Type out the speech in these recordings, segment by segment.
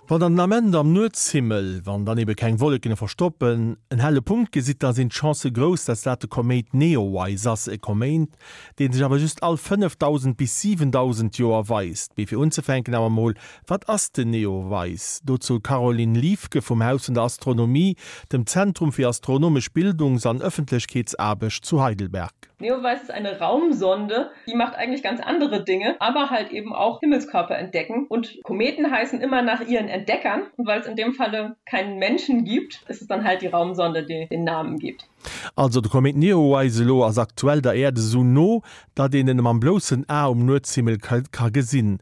Wann der den Ament am Nuetshimmel, wann dann ebe keng Wolleken e verstoppen, en helle Punkt gesitt, da sinn d'Chancë grouss, dass dat de Koméit Neowise ass, e Koméit, dee sech awer just all 5.000 bis 7.000 Joer weist. Mee fir unzefänken awer mol, Wat ass den Neowise? Dozou d'Caroline Liefke vum Haus vun der Astronomie, dem Zentrum fir astronomesch Bildungs an Ëffentlechkeetsaarbecht zu Heidelberg. Neowise ist eine Raumsonde, die macht eigentlich ganz andere Dinge, aber halt eben auch Himmelskörper entdecken. Und Kometen heißen immer nach ihren Entdeckern und weil es in dem Falle keinen Menschen gibt, ist es dann halt die Raumsonde, die den Namen gibt. Also de Komet Neowise elo ass aktuell der Äerd esou no, datt een en mam bloussen A um Nuetshimmel ka gesinn,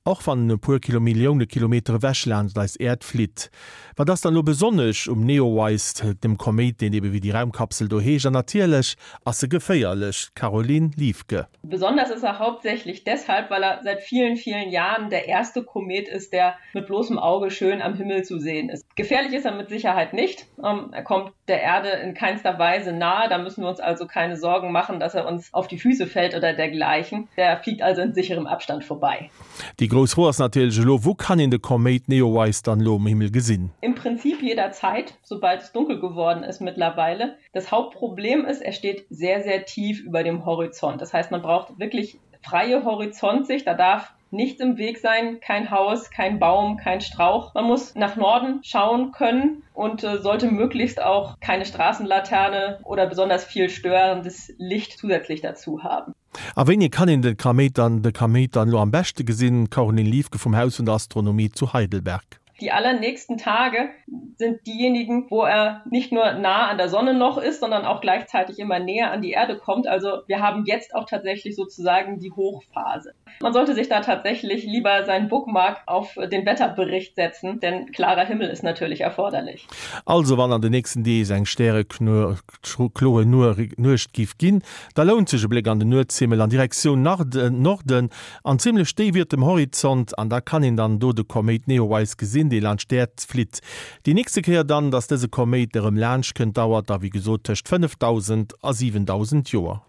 och wann en e puer Kilomillioune Kilometer ewech laanscht eis Äerd flitt. Wat ass dann elo besonnesch um Neowise, dem Koméit, deen ebe wéi déi Raumkapsel do heescht? An natierlech ass e geféierlech, Caroline Liefke. Besonders ist er hauptsächlich deshalb, weil er seit vielen, vielen Jahren der erste Komet ist, der mit bloßem Auge schön am Himmel zu sehen ist. Gefährlich ist er mit Sicherheit nicht. Ähm, er kommt der Erde in keinster Weise nahe. Da müssen wir uns also keine Sorgen machen, dass er uns auf die Füße fällt oder dergleichen. Der fliegt also in sicherem Abstand vorbei. Déi grouss Fro ass natierlech elo, Wou kann een de Koméit Neowise dann elo um Himmel gesinn? Im Prinzip jederzeit, sobald es dunkel geworden ist mittlerweile. Das Hauptproblem ist, er steht sehr, sehr tief über dem Horizont. Das heißt, man braucht wirklich freie Horizontsicht. Da darf nichts im Weg sein, kein Haus, kein Baum, kein Strauch. Man muss nach Norden schauen können und äh, sollte möglichst auch keine Straßenlaterne oder besonders viel störendes Licht zusätzlich dazu haben. A wéini kann een de Kaméit dann de Kaméit dann elo am beschte gesinn? Caroline Liefke vum Haus vun der Astronomie zu Heidelberg. Die allernächsten Tage sind diejenigen, wo er nicht nur nah an der Sonne noch ist, sondern auch gleichzeitig immer näher an die Erde kommt. Also wir haben jetzt auch tatsächlich sozusagen die Hochphase. Man sollte sich da tatsächlich lieber seinen Bookmark auf den Wetterbericht setzen, denn klarer Himmel ist natürlich erforderlich. Also wann an den nächsten Deeg eng stärekloer Nuecht giff ginn, da lount sech e Bléck an den Nuetshimmel an Direktioun Norden an zimmlech déif iwwert dem Horizont, an da kann een dann do de Koméit Neowise gesinn, dee laanscht d'Äerd flitt. Déi nächste Kéier dann, dass dëse Koméit erëm laanscht kënnt, dauert da wéi gesot tëscht 5.000 a 7.000 Joer.